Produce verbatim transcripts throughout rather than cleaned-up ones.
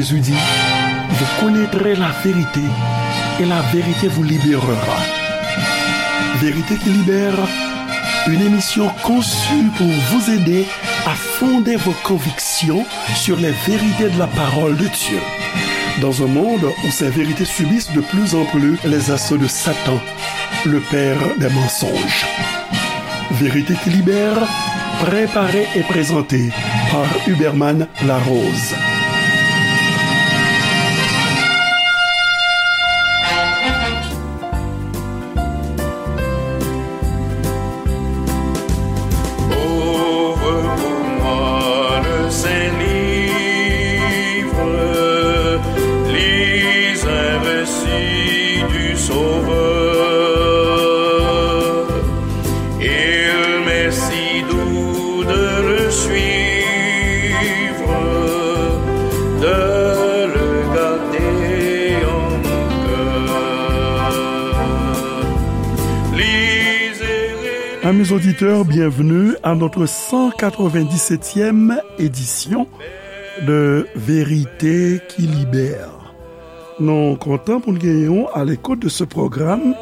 Jésus dit, vous connaîtrez la vérité et la vérité vous libérera. Vérité qui libère, une émission conçue pour vous aider à fonder vos convictions sur les vérités de la parole de Dieu. Dans un monde où ces vérités subissent de plus en plus les assauts de Satan, le père des mensonges. Vérité qui libère, préparée et présentée par Huberman Larose. Ouvre pour moi le Saint-Livre, lis un récit du Sauveur. Il m'est si doux de le suivre, de le garder en mon cœur. Lisez et Amis auditeurs, bienvenue à notre cent quatre-vingt-dix-septième édition de Vérité qui libère. Nou kontan pou n genyen w à l'écoute de ce programme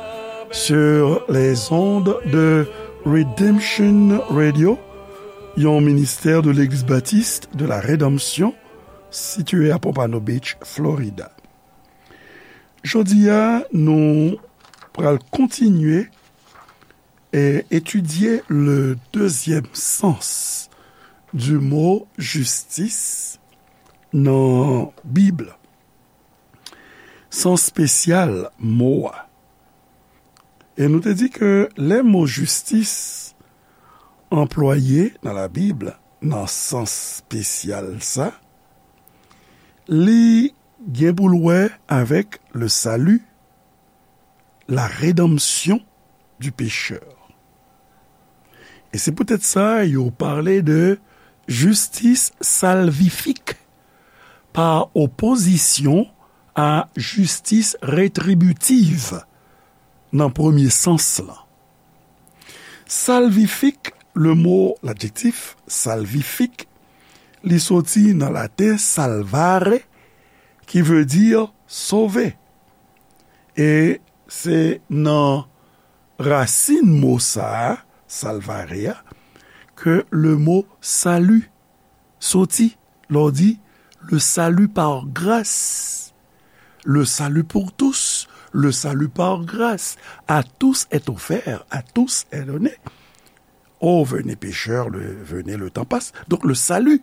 sur les ondes de Redemption Radio, yon ministè de Legliz Batis de la Redanmsyon, sitiye à Pompano Beach, Florida. Jodi a, nou pral kontinye e etidye le deuxième sens du mot justice nan Bib la. Sans espesyal mo a. E nou te di ke lè mo jistis anplwaye nan Labib nan sans espesyal sa, li gen pou l wè avèk le salut, la rédemption du pécheur. E se poutèt sa yo pale de justice salvifique pa opozisyon a justice rétributive nan premye sans lan. Salvifique, le mot, l'adjektif salvifique, li soti nan laten salvare, ki vle di sove. E se nan rasin mo sa a, salvare a, ke le mot salut soti. Lè w di, le salut par grâce, le salut pour tous, le salut par grâce, à tous est offert, à tous est donné. Oh, venez pécheurs, le, venez, le temps passe. Donc le salut,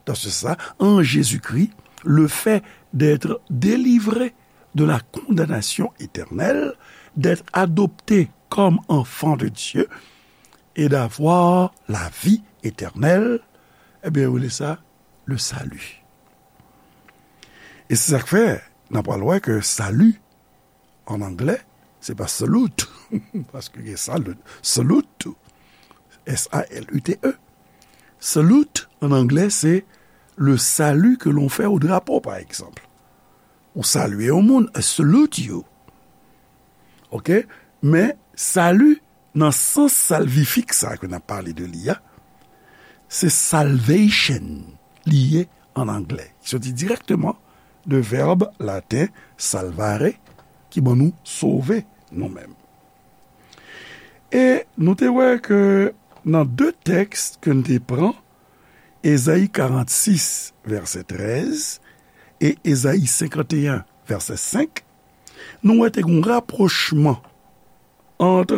dans ce sens, en Jésus-Christ, le fait d'être délivré de la condamnation éternelle, d'être adopté comme enfant de Dieu et d'avoir la vie éternelle, ebyen, yo rele sa le salut. E se sa k fè, n ap pral wè ke salut, an anglè, se pa salute, paske gen salut, salute tou, S A L U T E. Salute, an anglè, se le salut que l'on fait au drapeau, par exemple. Ou salye yon moun, I salute you. Oke? Men, salut, nan sans salvifik sa ke n ap pale de li a, se salvation li ye an anglè, ki soti dirèkteman de vèb laten salvare, ki ban nou sove nou menm. E nou te wè ke nan de tèks ke n te pran, Ezayi karannsis, vèsè trèz, e Ezayi senkanteyen, vèsè senk, nou wè te gen yon rapwochman ant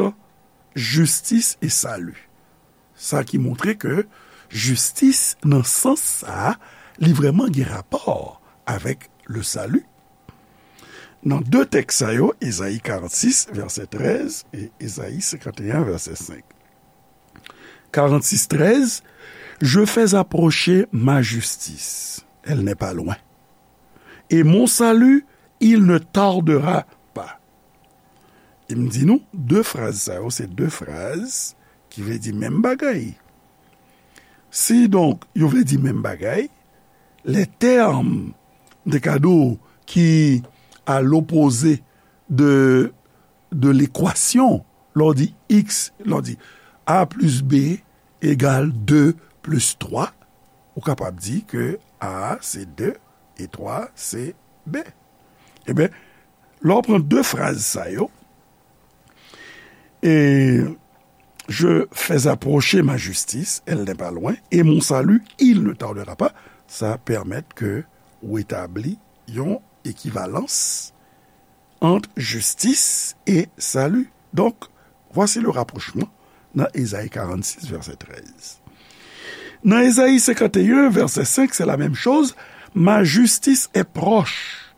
jistis e sali. Sa ki montre ke jistis, nan sans sa a, li vrèman gen rapò avèk le salut. Nan de tèks sa yo, Ezayi karannsis, vèsè trèz, e Ezayi senkanteyen, vèsè senk. Karannsis trèz, je fais approcher ma justice, elle n'est pas loin. Et mon salut, il ne tardera pas. E m di nou, de fraz sa yo, se de fraz ki vle di menm bagay. Si donk, yo vle di menm bagay, les termes de cadeau qui, à l'opposé de, de l'équation, lè w di x, lè w di a plis b egal de plis twa, ou kapab di ke a se de, E twa, se B. Ebyen, lè w pran de fraz sa yo, et je fais approcher ma justice, elle n'est pas loin, et mon salut, il ne tardera pas, sa pèmèt ke w etabli yon ekivalans ant jistis e sali. Donk, voici le rapprochement nan Ezayi karannsis, vèsè trèz. Nan Ezayi senkanteyen, vèsè senk, c'est la même chose. Ma justice est proche.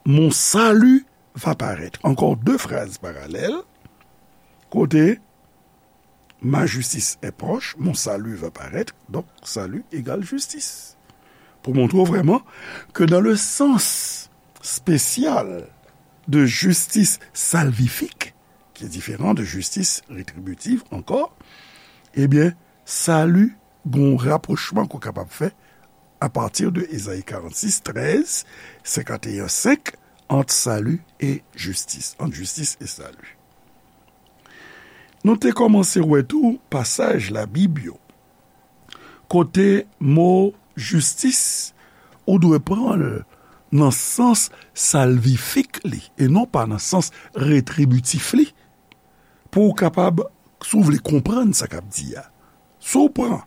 Mon salut va paraître. Encore deux phrases parallèles. Kote, ma justice est proche, mon salut va paraître. Donk, sali egal jistis. Pou montre w vrèman ke dans le sens spécial de justice salvifique, qui est différent de justice rétributive encore, ebyen, sali gon rapwochman ke w kapab fè apati de Ezayi karannsis, trèz, senkanteyen, senk, ant sali e jistis, ant jistis e sali. Nou te kòmanse wè tou pasaj Labib yo, kote mo jistis, ou dwe pran l nan sans salvifik li, e non pa nan sans retribitif li, pou w kapab, si w vle konprann sa k ap di a. Si w pran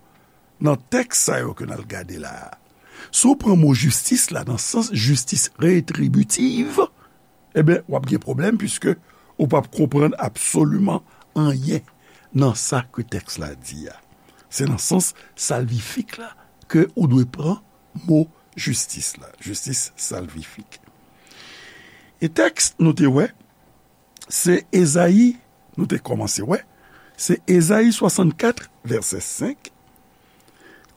nan tèks sa yo ke n al gade la a, si w pran mo jistis la nan sans jistis retribitif, ebyen, w ap gen pwoblèm, piske ou p ap konprann absoliman anyen nan sa ke tèks la di a. Se nan sans salvifik la ke ou dwe pran mo jistis la, jistis salvifik. E tèks nou te wè, se Ezayi, nou te kòmanse wè, se Ezayi swasannkat, vèsè senk,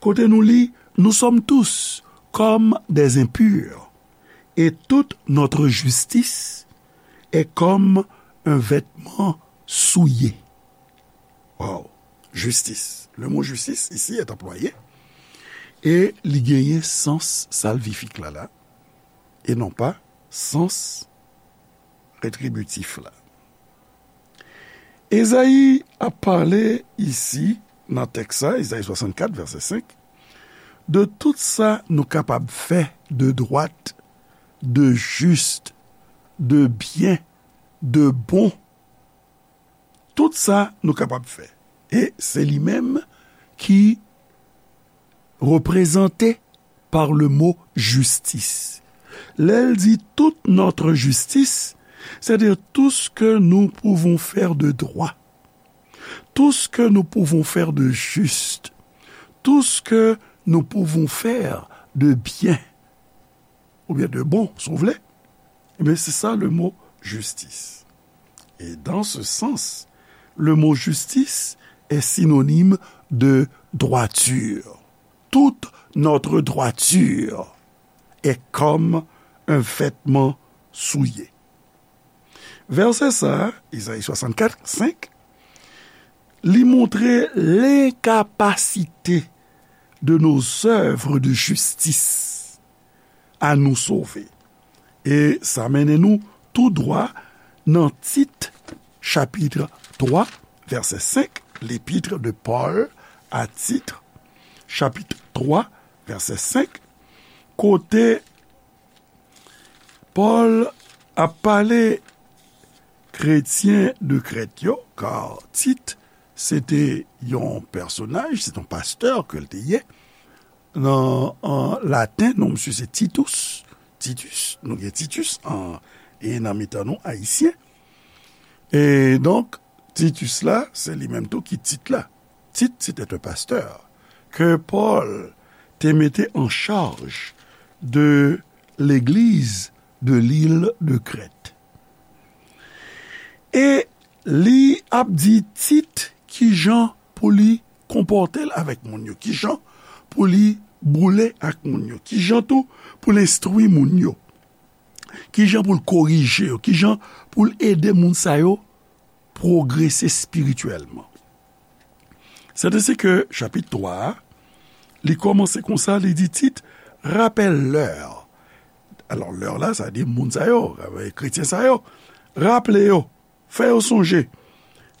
kote nou li, nous sommes tous comme des impurs, et toute notre justice est comme un vêtement souillé. Wow! Jistis. Le mot justice ici est employé, e li genyen sans salvifik la la, e non pa sans retribitif la. Ezayi ap pale isi, nan tèks sa, Ezayi swasannkat, vèsè senk, de tout sa nou kapab fè de dwat, de jis, de byen, de bon. Tout sa nou kapab fè. E se li menm ki reprezante par le mot justice. Lè l di toute notre justice, c'est-à-dire tout ce que nous pouvons faire de droit, tout ce que nous pouvons faire de juste, tout ce que nous pouvons faire de bien, oubyen de bon, si w vle, ebyen, se sa le mot justice. Et dans ce sens, le mot justice est synonyme de droiture. Toute notre droiture est comme un vêtement souillé. Vèsè sa, Ezayi swasannkat, senk, li montre lenkapasite de nos œuvres de justice à nous sauver. E sa mennen nou tou dwa nan Tit, chapit twa, vèsè senk, l'épître de Paul à Tite, chapit twa, vèsè senk, kote Pòl ap pale kretyen de Krèt yo, ka Tit, se te yon pèsonaj, se te yon pastè ke l te ye. Nan, an laten, non misye se Titus. Titus, nou gen Titus an, e nan mitan nou, Ayisyen. E donk, Titus la, se li menm tou ki Tit la. Tite, c'était un pasteur que Paul te mete en charge de l'église de l'île de Crète. E li ap di Tit kijan pou li konpòte l avèk moun yo, kijan pou li boule ak moun yo, kijan tou pou l enstwi moun yo, kijan pou l korije yo, kijan pou l ede moun sa yo pwogrese espirityèlman. C'est ainsi que, chapit twa a, li kòmanse konsa, li di Tit, rappelle-leur. Alò, leur la, sa di moun sa yo, kretyen sa yo. Raple yo, fè yo sonje,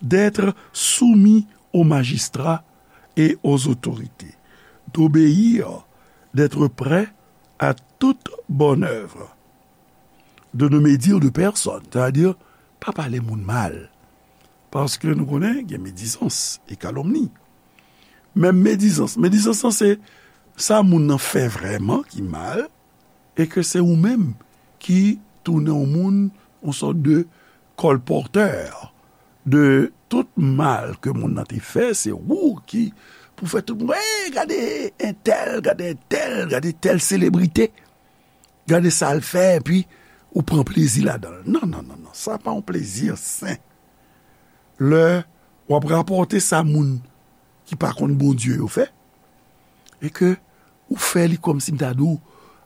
d'être soumis aux magistrats et aux autorités, d'obéir, d'être prêts à toute bonne œuvre, de ne médire de personne, sètadi, pa pale moun mal. Paske nou konnen gen medizans e kalomni. Menm medizans, medizans lan se sa moun nan fè vrèman ki mal, e ke se ou menm ki tounen yon moun, yon sòt de kòlpòtè de tout mal ke moun nan te fè, se ou ki pou fè tout moun, "Hey, gade entèl, gade entèl, gade tèl selebrite, gade sa l fè," epi ou pran plezi ladan l. Non, non, non, non, sa pa yon plezi sen. Lè w ap rapòte sa moun ki pa konn Bondye yo fè, e ke ou fè li kòmsi m ta di w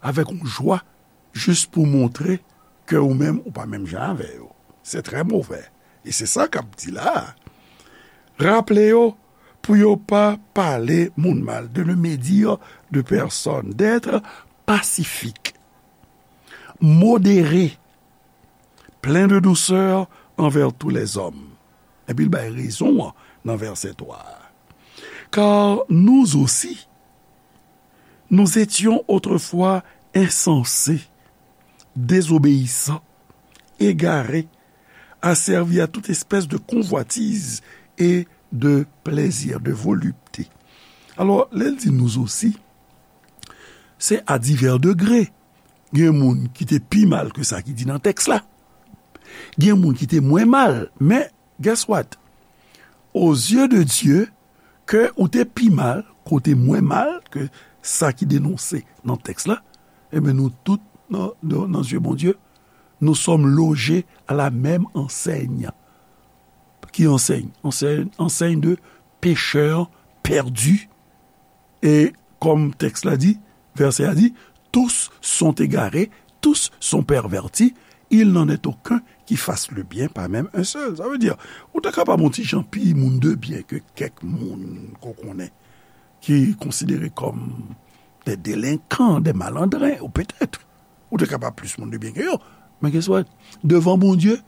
avèk yon jwa, jis pou montre ke ou menm ou pa menm jan avè yo. Se trè movè. E se sa k ap di la a. Raple yo pou yo pa pale moun mal, de ne médire de personne, d'être pacifique, modéré, plein de douceur envers tous les hommes. Epi l bay rezon an nan vèsè twa a. Car nous aussi, nous étions autrefois insensés, désobéissants, égarés, asservis à toute espèce de convoitise et de plaisir, de volupté. Alò, lè l di nous aussi, se à divers degrés. Gen moun ki te pi mal ke sa ki di nan tèks la. Gen moun ki te mwen mal. Men, guess what? Aux yeux de Dieu, ke ou te pi mal, ke w te mwen mal ke sa ki denonse nan tèks la, ebyen, nou tout, nan, nan, nan zye Bondye, nous sommes logés à la même enseigne. Ki ansèy? Ansèy, ansèy de pécheurs perdus. E kòm tèks la di, vèsè a di, tous sont égarés, tous sont pervertis, il n'en est aucun qui fasse le bien, pas même un seul. Sa vle di, ou ta kapab yon ti jan pi moun de byen ke kèk moun ke w konnen, ki konsidere kòm des délinquants, des malandrins, ou petèt, ou te kapab plis moun de byen ke yo. Men guess what? Devan Bondye,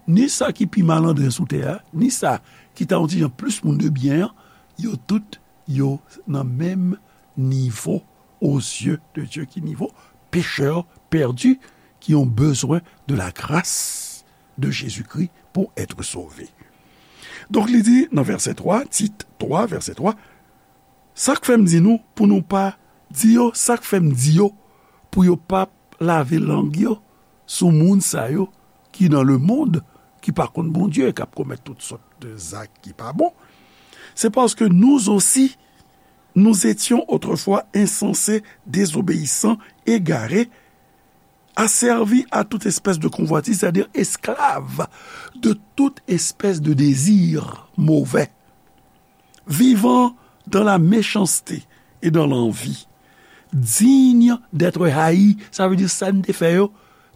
ni sa ki pi malandren sou tè a, ni sa ki ta yon ti jan plis moun de byen an, yo tout, yo nan menm nivo aux yeux de Dieu. Ki nivo? Pécheurs perdus qui ont besoin de la grâce de Jésus-Christ pour être sauvés. Donk, li di nan vèsè twa, Tit twa, vèsè twa, sa k fè m di nou pou nou pa di yo, sa k fè m di yo pou yo pa lave lang yo sou moun sa yo ki nan lemonn, ki pa konn Bondye, k ap komèt tout sòt de zak ki pa bon. C'est parce que nous aussi, nous étions autrefois insensés, désobéissants, égarés, asservis à toute espèce de convoitise, c'est-à-dire esclaves de toute espèce de désir mauvais, vivant dans la méchanceté et dans l'envie, dignes d'être haïs. Sa vle di sa n te fè yo,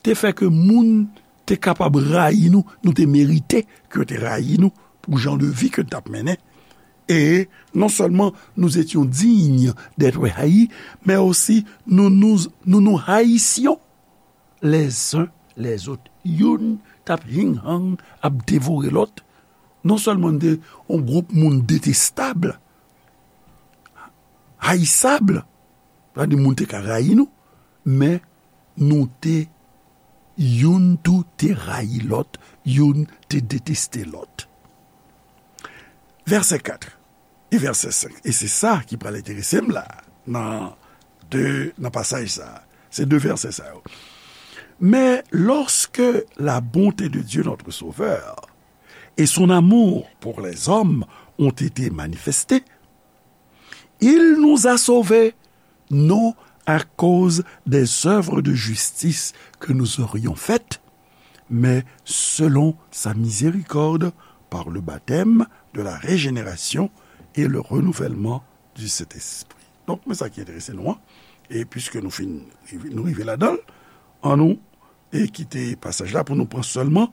te fè ke moun te kapab rayi nou, nou te merite ke yo te rayi nou pou jan de vi ke n t ap mennen. Et non seulement nous étions dignes d'être haïs, mais aussi nous nous, nous nous haïssions les uns les autres. Youn t ap hing-hang, ap devore lòt. Non sèlman n te yon gwoup moun detestab, hayisab, sa vle di moun te ka rayi nou, men nou te, youn tou te rayi lòt, youn te deteste lòt. Vèsè kat e vèsè senk. E se sa ki pral enterese m la, nan de, nan pasaj sa. Se de vèsè sa yo. Mais lorsque la bonté de Dieu notre Sauveur et son amour pour les hommes ont été manifestés, il nous a sauvés, non à cause des œuvres de justice que nous aurions faites, mais selon sa miséricorde, par le baptême de la régénération et le renouvellement du Saint-Esprit. Donk, men sa ki enterese nou an. E piske nou fin, nou rive ladan l, annou e kite pasaj la pou nou pran sèlman,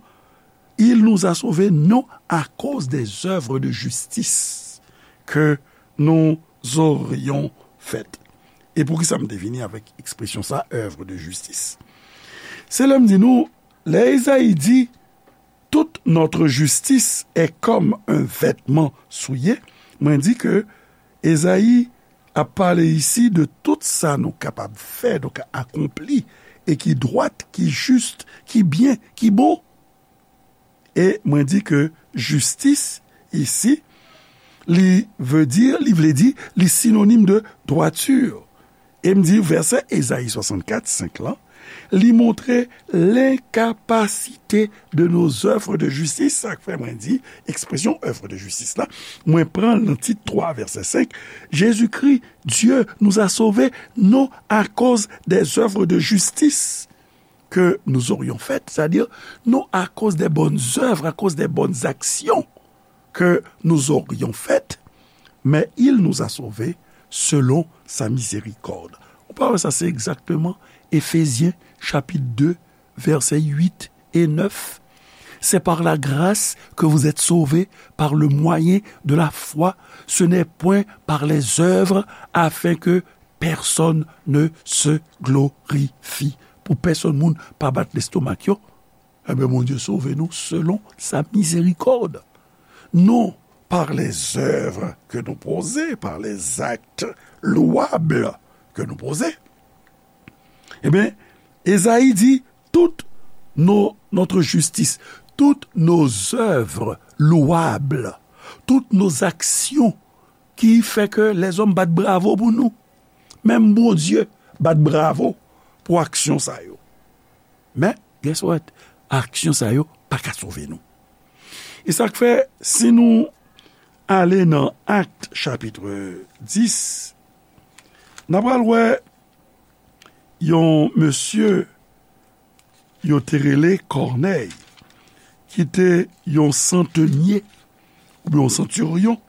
il nous a sauvés non à cause des œuvres de justice que nous aurions faites. E poukisa m te vini avèk ekspresyon sa, œuvre de justice? Se lè m di nou, lè Ezayi di, toute notre justice est comme un vêtement souillé, mwen di ke Ezayi ap pale isi de tout sa nou kapab fè, nou ka akonpli, e ki dwat, ki jis, ki byen, ki bon. E mwen di ke jistis isi, li vle di, li vle di, li sinonim de dwati. E m di vèsè Ezayi swasannkat, senk lan, li montre lenkapasite de nos œuvres de justice. Sa k fè mwen di ekspresyon œuvre de justice la, mwen pran l nan Tit twa, vèsè senk. Jésus-Christ, Dieu nous a sauvés, non à cause des œuvres de justice que nous aurions faites, c'est-à-dire, non à cause des bonnes œuvres, à cause des bonnes actions que nous aurions faites, mais il nous a sauvés selon sa miséricorde. Ou pa wè sa, se egzakteman Efezyen chapit de, vèsè uit e nèf. C'est par la grâce que vous êtes sauvés, par le moyen de la foi. Ce n'est point par les œuvres, afin que personne ne se glorifie. Pou pèsonn moun pa bat lestomak yo, enben, Bondye sove nou selon sa mizerikòd. Non par les œuvres que nous posons, par les actes louables que nous posons. Ebyen, Ezayi di, toute nos, notre justice, toutes nos œuvres louables, toutes nos actions ki fè ke lèzòm bat bravo pou nou. Menm Bondye bat bravo pou aksyon sa yo. Men, guess what? Aksyon sa yo pa ka sove nou. E sa k fè, si nou ale nan Akt chapit dis, n a pral wè yon mesye yo te rele Kònèy, ki te yon santenye oubyen yon santiryon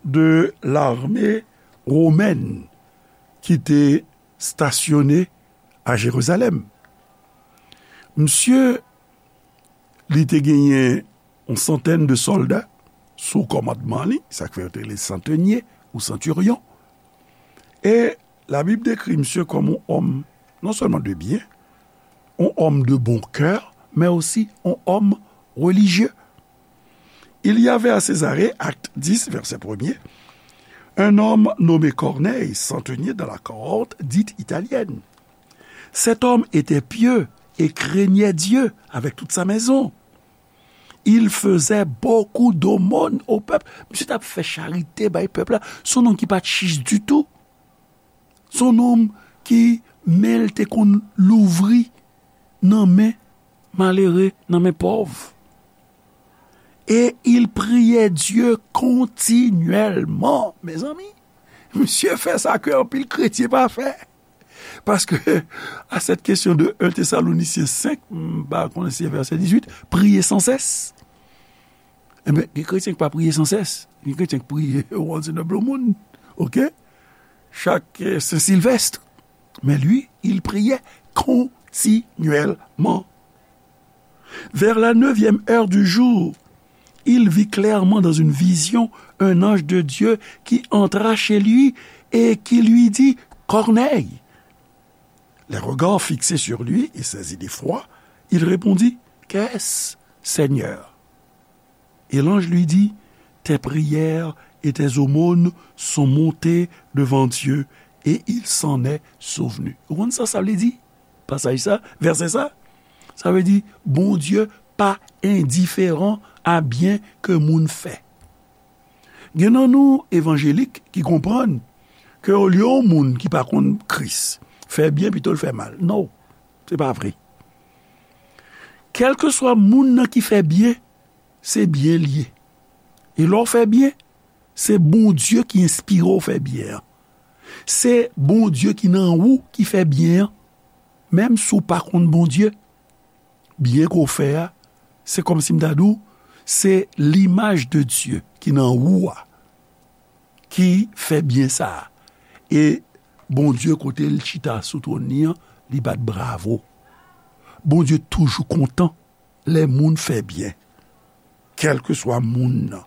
de lame womèn ki te stasyone a Jerizalèm. Misye, li te genyen yon santèn de sòlda sou kòmandman li, sa k fè yo te rele santenye ou santiryon. E Labib dekri misye kòm yon òm non sèlman de byen, yon òm de bon kè, men osi yon òm relijye. Il y avait à Césarée, acte dix, verset premier, un homme nommé Corneille, centenier dans la cohorte dite italienne. Cet homme était pieux et craignait Dieu avec toute sa maison. Il faisait beaucoup d'aumônes au peuple. Misye t ap fè charite bay pèp la. Se yon nonm ki pa t chich ditou. Se yon nonm ki men l te konn louvri nan men malere, nan men pòv. Et il priait Dieu continuellement. Mezanmi, misye fè sa ke anpil kretyen pa fè. Paske, à cette question de un Thessaloniciens cinq, m pa konnen si se vèsè dizuit, prier sans cesse. Enben, gen kretyen ki pa priye san sès. Gen kretyen ki priye once in a blue moon. Oke? Chak, eh, Sen Silvèst. Mais lui, il priait continuellement. Vers la neuvième heure du jour, il vit clairement dans une vision un ange de Dieu qui entra chez lui et qui lui dit, Corneille. Les regards fixés sur lui et saisi d'effroi, il répondit, Qu'est-ce, Seigneur? Et l'ange lui dit, Tes prières et tes aumônes sont montées devant Dieu, et il s'en est souvenu. Ou konn sa sa vle di? Pasaj sa, vèsè sa? Sa vle di, Bondye pa endiferan a byen ke moun fè. Gen nan nou evanjelik ki konprann ke olye yon moun ki pa konn Kris fè byen, pito l fè mal. Non, se pa vre. Kèlkeswa moun nan ki fè byen, se byen l ye. E lè w fè byen, se Bondye ki enspire w fè byen an. Se Bondye ki nan ou ki fè byen an. Menm si w pa konn Bondye, byen ke w fè a, se kòmsi m ta di w, se limaj de Dye ki nan ou a, ki fè byen sa a. E Bondye, kote l chita sou twòn li an, li bat bravo. Bondye toujou kontan lè moun fè byen, kèlkeswa moun nan.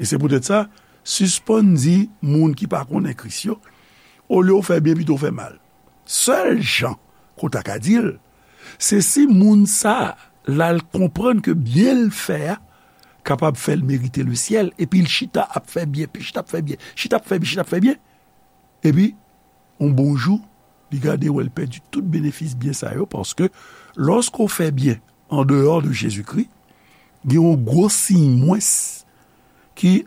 E se poutèt sa, sispann di moun ki pa konnen Kris yo, olye w fè byen, pito w fè mal. Sèl jan ke w ta ka di l, se si moun sa a, l al konprann ke byen l fè a kapab fè l merite lesyèl, epi l chita ap fè byen, pi chita ap fè byen, chita ap fè byen, chita ap fè byen. Epi, yon bon jou, li gade wè l pèdi tout benefis byen sa yo, paske lòske w fè byen andeyò de Jezikri, gen yon gwo siy mwens ki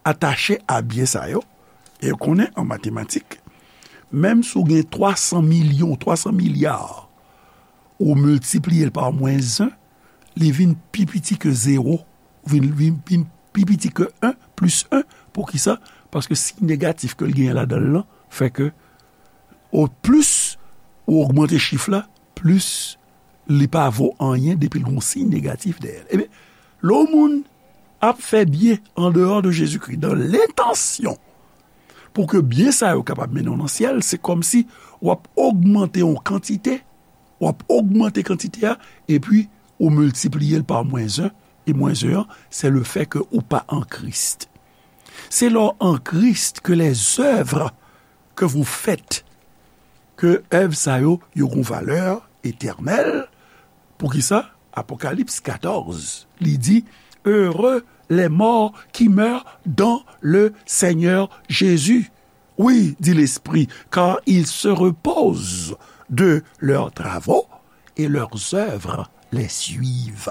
atache a byen sa yo. E w konnen an matematik, menm si w gen twa san milyon, twa san milya, ou miltipliye l pa mwens en, li vin pi piti ke zewo, vin, vin, vin pi piti ke en plis en. Poukisa? Paske siy negatif ke l genyen ladan l lan fè ke, o plis ou ogmante chif la, plis li pa vo anyen depi l gon siy negatif dèyè l. Ebyen, lè yon moun ap fè byen andeyò de Jezikri, dan lentansyon pou ke byen sa yo kapab mennen w nan syèl, se kòmsi w ap ogmante yon kantite, w ap ogmante kantite a, epi ou miltipliye l pa mwens en, e mwens en an, se le fè ke ou pa an Kris. C'est lors en Christ que les œuvres que vous faites, ke èv sa yo, yo gon valè etènèl. Poukisa? Apokalips katòz, li di, Heureux les morts qui meurent dans le Seigneur Jésus. Oui, dit l'Esprit, car ils se reposent de leurs travaux et leurs œuvres les suivent.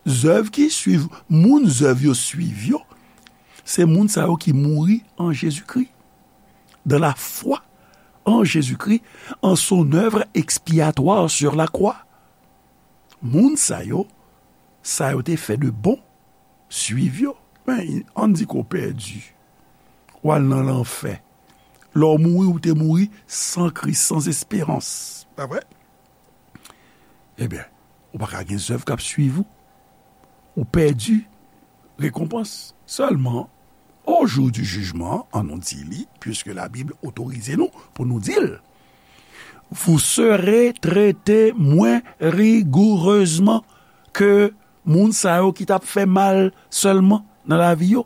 Zèv ki swiv, moun zèv yo swiv yo, se moun sa yo ki mouri an Jezikri, dans la foi en Jésus-Christ, en son œuvre expiatoire sur la croix. Moun sa yo, sa yo te fè de bon, swiv yo. Men, ann di ke w pèdi, w al nan lanfè. Lè w mouri, ou te mouri san Kris, san esperans. Pa vre? Ebyen, ou pa ka gen zèv k ap swiv ou. Ou pèdi rekonpans. Sèlman, au jour du jugement, ann nou di li, puisque la Bible otorize nou pou nou di l, vous serez traités moins rigoureusement que moun sa yo ki t ap fè mal sèlman nan lavi yo.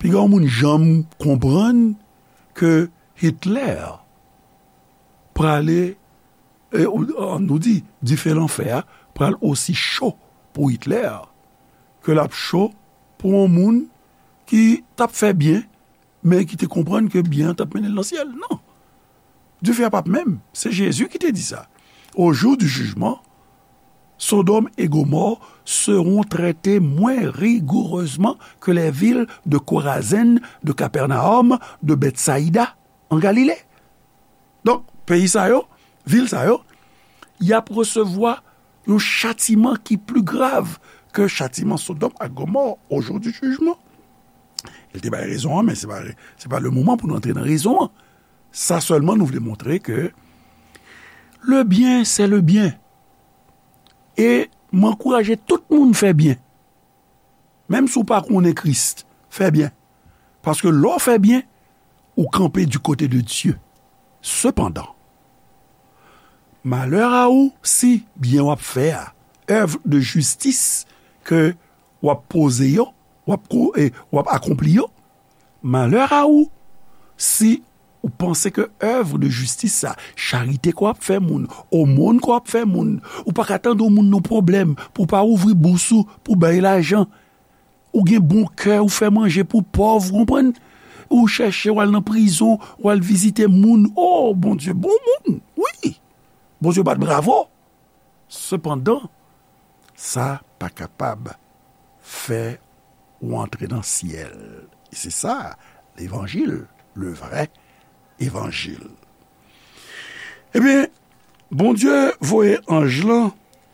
Piga yon moun janm konprann ke Hitler prale, e, ou, ann nou di, dife lanfè a pral osi cho pou Hitler ke l ap cho pou yon moun ki t ap fè byen, men ki te konprann ke byen an t ap mennen l nan syèl. Non. Dife a p ap menm. Se Jezi ki te di sa. Au jour du jugement, Sodome et Gomorrhe seront traités moins rigoureusement que les villes de Corazin, de Capernaum, de Bethsaïda en Galilée. Donk, peyi sa yo, vil sa yo, y ap resevwa yon chatiman ki pli grav ke chatiman Sodòm ak Gomò au jour du jugement. Li te bay rezon an, men se pa, se pa le moman pou nou antre nan rezon an. Sa sèlman nou vle montre ke le bien, c'est le bien. E m ankouraje tout moun fè byen. Menm si w pa konnen Kris, fè byen. Paske lè w fè byen, ou kanpe du côté de Dieu. Sepandan, malè a ou si byen w ap fè a, èv de jistis ke w ap poze yo, w ap ko-, e, w ap akonpli yo, malè a ou si ou panse ke èv de jistis sa, charite ke w ap fè moun, omòn ke w ap fè moun, ou pa ka tande yon moun nan pwoblèm pou w pa ouvri bous ou pou bay lajan. Ou gen bon kè, ou fè manje pou pòv, ou konprann? Ou chèche, w al nan prizon, w al vizite moun. O, Bondye bon moun, wi. Bondye bat bravo. Sepandan, sa pa kapab fè ou antre nan syèl. E se sa, levanjil, le vrè evanjil. Ebyen, Bondye voye anj lan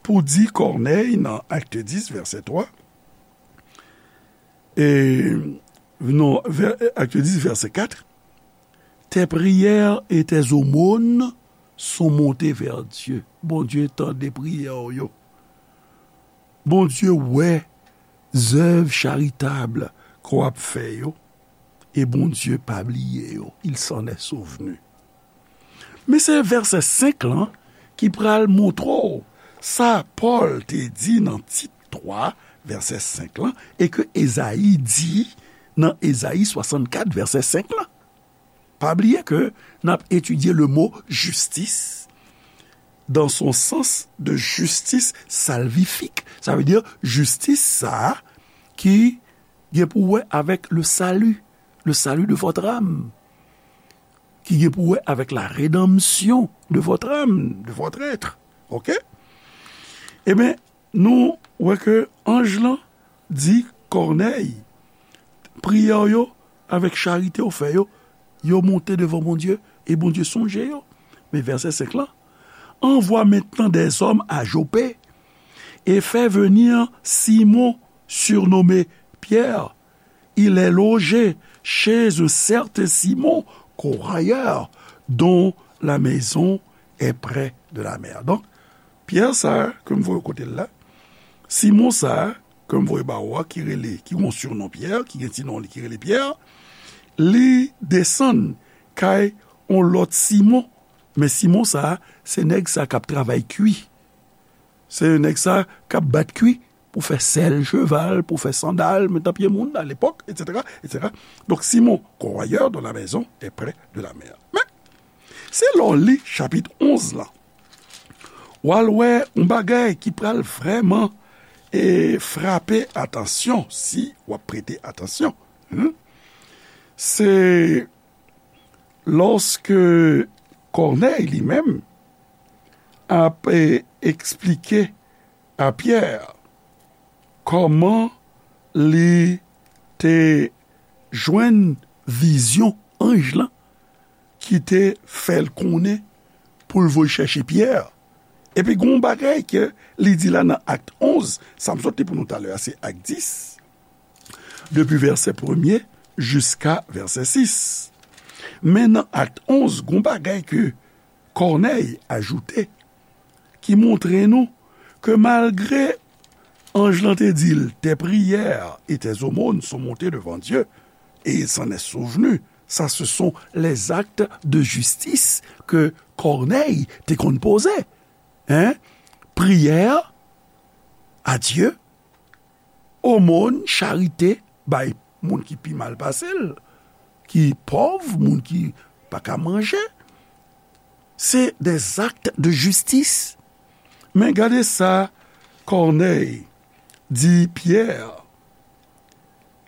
pou di Kònèy nan Acte dix, verset trois, e, non, vè-, Acte dix, verset quatre, tes prières et tes aumônes sont montées vers Dieu. Bondye tande priyè w yo. Bondye wè zèv charitab ke w ap fè yo, e Bondye pa bliye yo, il s'en est souvenu. Men se vèsè senk lan ki pral montre w sa Pòl te di nan Tit twa, vèsè senk lan, e ke Ezayi di nan Ezayi swasannkat, vèsè senk lan. Pa bliye ke n ap etidye le mo jistis dans son sens de justice salvifique. Sa vle di jistis sa a ki gen pou wè avèk le salut, le salut de votre âme. ki gen pou wè avèk la rédemption de votre âme, de votre être. Oke? Ebyen, nou wè ke anj lan di Kònèy, priyè w yo, avèk charite w fè yo, yo monte devan Bondye, e Bondye sonje yo. Men vèsè senk lan, Envoie maintenant des hommes à Joppé et fais venir Simon, surnommé Pierre. Il est logé chez un certain Simon, corailleur, dont la maison est près de la mer. Donk, Pyè sa a, ke m voye kote l la, Simon sa a, ke m voye ba ou a, ki rele, ki gen yon sinon Pyè, ki gen ti non li ki rele Pyè, li desann kay yon lòt Simon. Men Simon sa a, se nèg sa k ap travay kwi. Se nèg sa k ap bat kwi pou fè sèl cheval, pou fè sandal, met nan pye moun, à l'époque, et cetera, et cetera. Donk, Simon, corrailleur dont la maison est près de la mer. Men, se lè w li chapit onz lan, w al wè yon bagay ki pral vrèman, e, frape atansyon, si w ap prete atansyon. Hmm? Se lòske Kònèy li menm ap, e, eksplike a Pyè kòman li te jwenn vizyon anj lan ki te fè l konnen pou l voye chèche Pyè. Epi gen yon bagay ke li di la nan Akt onz, sa m sot li pou nou talè a, se Akt dis, depi vèsè premye jiska vèsè sis. Men nan Akt onz, gen yon bagay ke Kònèy ajoute, ki montre nou ke malgre anj lan te di l, tes prières et tes aumônes sont montées devant Dieu, et il s'en est souvenu, ça ce sont les actes de justice ke Kònèy te konn poze. Hein? Priyè a Dye, omòn, charite bay moun ki pi mal pase l, ki pòv, moun ki pa ka manje. Se des actes de justice. Men gade sa Kònèy di Pyè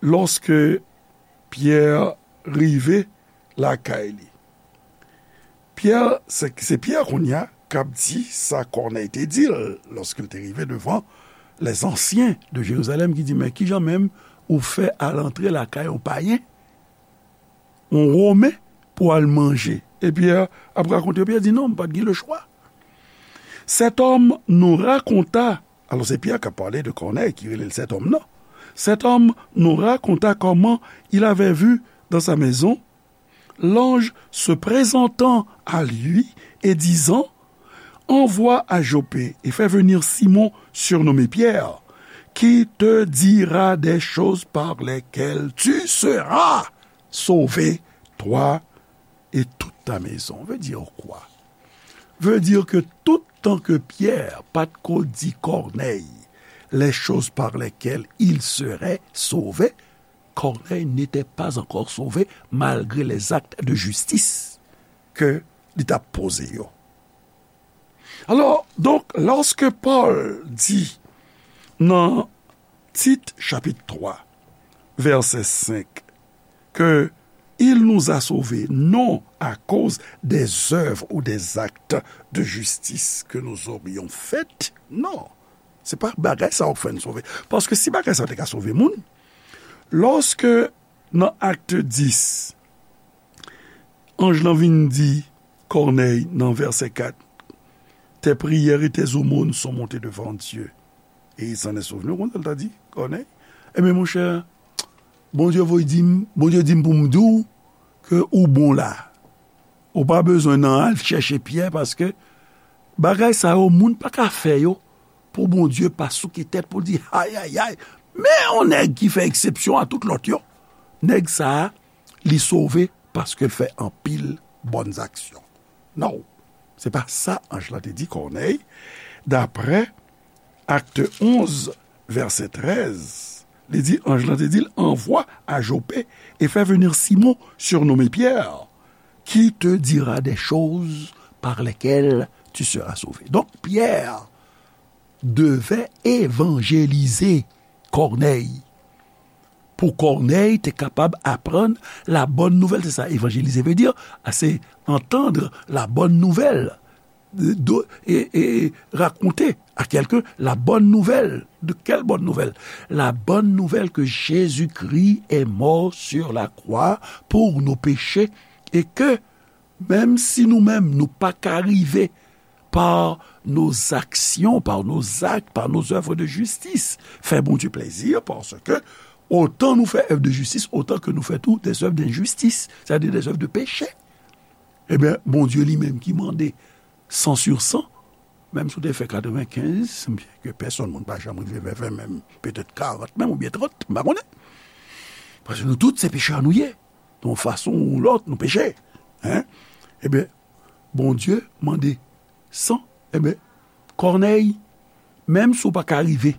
lòske Pyè rive lakay li. Pyè, se, se Pyè kounye a k ap di sa Kònèy te di l lòske l te rive devan les anciens de Jérusalem, ki di, men kijan menm ou fè al antre lakay yon payen, yon Women, pou al manje? E Pyè ap rakonte, Pyè di, non, m pa t gen lechwa. Cet homme nous raconta, alors c'est Pierre qui a parlé de Corneille, qui relève cet homme, non. Cet homme nous raconta comment il avait vu dans sa maison l'ange se présentant à lui et disant, envoie à Joppé et fais venir Simon, surnommé Pierre, qui te dira des choses par lesquelles tu seras sauvé, toi et toute ta maison. Veut dire quoi? Veut dire que tout tan ke Pyè pa t ko di Kònèy les choses par lesquelles il serait sauvé, Corneille n'était pas encore sauvé malgré les actes de justice ke li t ap poze yo. Alò, donk, lòske Pòl di nan Tit chapit twa, vèsè senk, ke il nous a sauvés non à cause des œuvres ou des actes de justice que nous aurions faits, non. Se pa bagay sa yo k fè n sove. Paske si bagay sa yo te ka sove moun, lòske nan Akt dis, anj lan vin di Kònèy nan vèsè kat, tes prières et tes aumônes sont montées devant Dieu, et il s'en est souvenu, ou konn sa l ta di Kònèy? Ebyen, monchè, Bondye voye di m, Bondye di m pou m di w ke ou bon la. Ou pa bezwen nan al chèche Pyè, paske bagay sa yo, moun pa ka fè yo pou Bondye pa souke tèt pou l di, ay, ay, ay, men yon nèg ki fè eksepsyon a tout lòt yo. Nèg sa a, li sove paske l fè anpil bòn aksyon. Non, se pa sa anj lan te di Kònèy, daprè Akt onz, vèsè trèz, li di, anj lan te di l, envoie à Joppé et fais venir Simon, surnommé Pierre, qui te dira des choses par lesquelles tu seras sauvé. Donk, Pyè devait évangéliser Corneille. Pou Kònèy te kapab aprann la bonne nouvelle, c'est ça, évangéliser veut dire, c'est entendre la bonne nouvelle, de, de, et, et raconter à quelqu'un la bonne nouvelle. De quelle bonne nouvelle? La bonne nouvelle que Jésus-Christ est mort sur la croix pour nos péchés et que menm si nou menm nou pa ka rive par nos actions, par nos actes, par nos œuvres de justice, fè Bondye plezi, paske otan nou fè èv de jistis, otan ke nou fè tou des œuvres d'injustice, c'est-à-dire des œuvres de péché. Ebyen, Bondye li menm ki mande san sur san, menm si w te fè katrevenkenz, ke pèsonn moun pa janm rive vèvè menm, petèt karant menm oubyen trant, m pa konnen. Paske nou tout se pechè nou ye. Yon fason ou lòt, nou peche. Hein? Ebyen, Bondye mande san. Ebyen, Kònèy, menm si w pa ka rive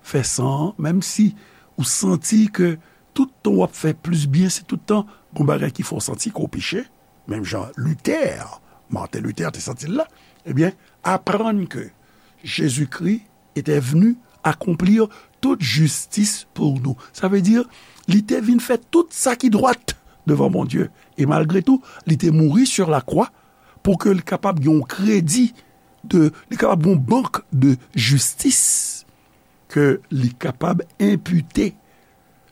fè san an, menm si ou santi ke tout tan w ap fè plis byen, se tout tan gon bagay ki fè w santi ke w peche, menm jan Luther, Martin Luther te santi l la, ebyen, aprann ke Jezikri était venu accomplir toute justice pour nous. Sa vle di, li te vin fè tout sa ki dwat devan Bondye. E malgre tou, li te mouri sur la croix pou ke li kapab gen yon kredi de, li kapab gen yon bank de jistis ke li kapab enpite,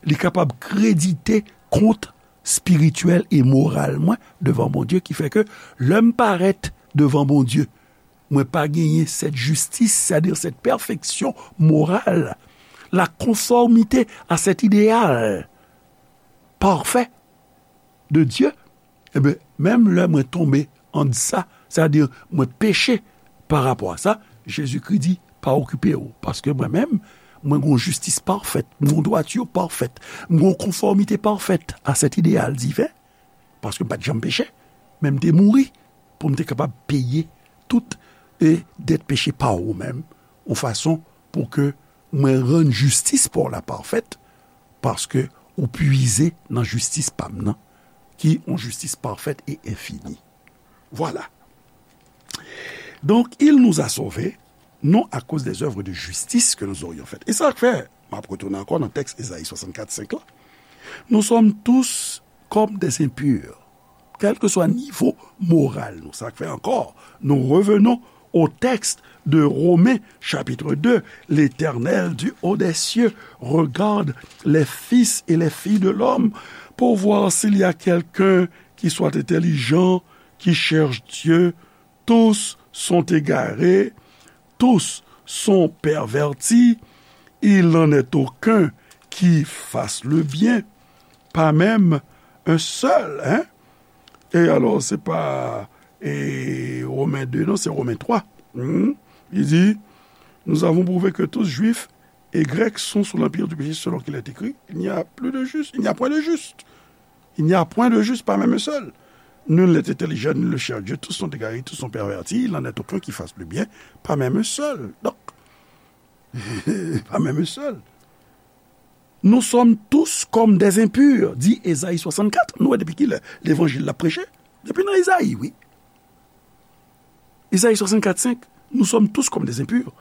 li kapab kredite kont espirityèl e moral mwen devan Bondye, ki fè ke lè m parèt devan Bondye, mwen pa genyen cette justice, c'est-à-dire cette perfection morale, la conformité à cet idéal parfait de Dieu, ebyen, menm lè mwen tonbe an de sa, c'est-à-dire mwen peche pa rapò a sa, Jezikri di, pa okipe w, paske mwen menm, mwen gon jistis pafèt, mwen gon dwati pafèt, mwen gon konfòmite pafèt a cet idéal divin, paske m pa t janm peche, men m te mouri pou m te kapab peye tout e dèt peche pa ou menm, yon fason pou ke mwen rann jistis pa w la pafèt, paske ou puize nan jistis pa m nan, ki yon jistis pafèt e enfini. Voilà. Donc, il nous a sauvés, non à cause des œuvres de justice que nous aurions faites. E sa k fè, m ap retounen ankò nan tèks Ezayi swasannkat senk la, nous sommes tous comme des impurs, kèlkeswa nivo moral nou. Sa k fè ankò, nous revenons au texte de Romains chapitre deux, l'Éternel du haut des cieux regarde les fils et les filles de l'homme pour voir s'il y a quelqu'un qui soit intelligent, qui cherche Dieu. Tous sont égarés, tous sont pervertis, il n'en est aucun qui fasse le bien, pas même un seul, hein? E alò, se pa, e, Romen de, non, se Romen twa. Hmm? Li di, nous avons prouvé que tous, juifs et grecs, sont sous l'empire du péché, selon qu'il est écrit, il n'y a plus de juste, il n'y a point de juste. Il n'y a point de juste, pas même un seul. Nul n'est intelligent, nul ne cherche Dieu, tous sont égarés, tous sont pervertis, il n'en est aucun qui fasse le bien, pas même un seul. Donc, pas même un seul. Nous sommes tous comme des impurs, di Ezayi swasannkat. Nou wè depi kilè levanjil la preche? Depi nan Ezayi, wi. Ezayi swasannkat senk, nous sommes tous comme des impurs,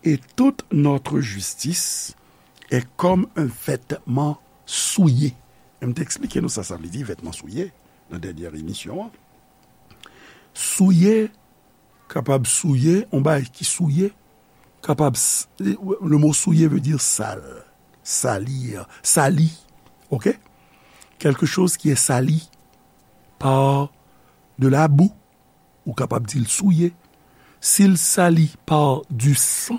et toute notre justice est comme un vêtement souillé. E m te eksplike nou sa sa vle di, vètman souye, nan dènyè emisyon an. Souye, kapab souye, yon bagay ki souye, kapab, le mot souillé veut dire sale, salir, sali, ok? Quelque chose qui est sali par de la boue, ou kapab di l souye. Si l sali par du sang,